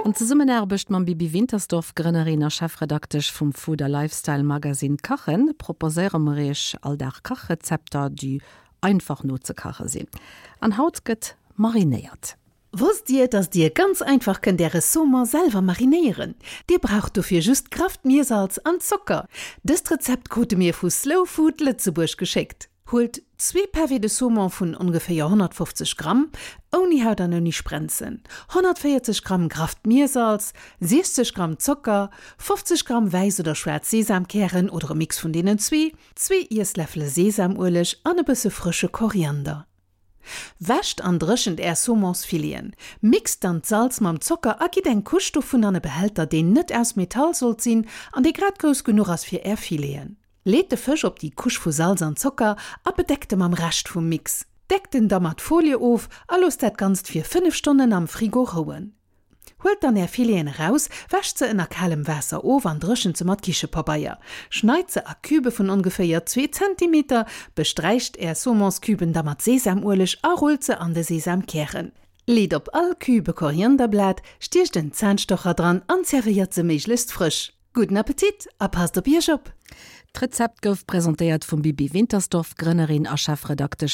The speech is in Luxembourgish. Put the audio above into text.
An Zesummenaarbecht mam Bibi Wintersdorf, Grënnerin a Chefredaktesch vum Food a Lifestyle Magazine Kachen, proposéiere mer iech all Dag Kachrezepter, déi einfach nozekache sinn. An haut gëtt marinéiert. Wosst Dir, dass Dir ganz einfach kënnt Äre Saumon selwer marinéieren? Dir braucht dofir just grafft Miersalz an Zocker. Dëst Rezept krute mir vu Slow Food Lëtzebuerg geschéckt. Huelt zwee Pavés de Saumon vun ongeféier 150 Gramm, ouni Haut an ouni Sprenzen, 140 Gramm grafft Miersalz, 60 Gramm Zocker, 50 Gramm wäiss oder schwaarz Sesamkären oder e Mix vun deenen zwee, zwee Iessläffele Sesamueleg an e bësse frësche Koriander. Wäscht an dréchent Är Saumonsfileten. Mixt dann d'Salz mam Zocker a gitt eng Couche dovun an e Behälter, deen net aus Metall sollt sinn an dee grad grouss genuch ass fir Är Fileten. Leet de Fësch op déi Couche vu Salz an Zocker a bedeckt e mam Rescht vum Mix. Deckt en da mat Folie of a loosst dat Ganzt fir 5 Stonnen am Frigo rouen. Huelt dann är Fileten eraus, wäscht se ënner kalem Waasser of an dréchent se mat Kichepabeier. Schneit se a Cubë vun ongeféier zwee Zentimeter, besträicht är Saumonscuben da mat Sesamueleg a rullt se an de Sesamkären. Leet op all Cube e Korianderblat, stiecht en Zahnstocher dran an zerwéiert se méiglechst frësch. Gudden Appetit a passt op iech op! D'Rezept gouf presentéiert vum Bibi Wintersdorf, Grënnerin a Chefredaktesch.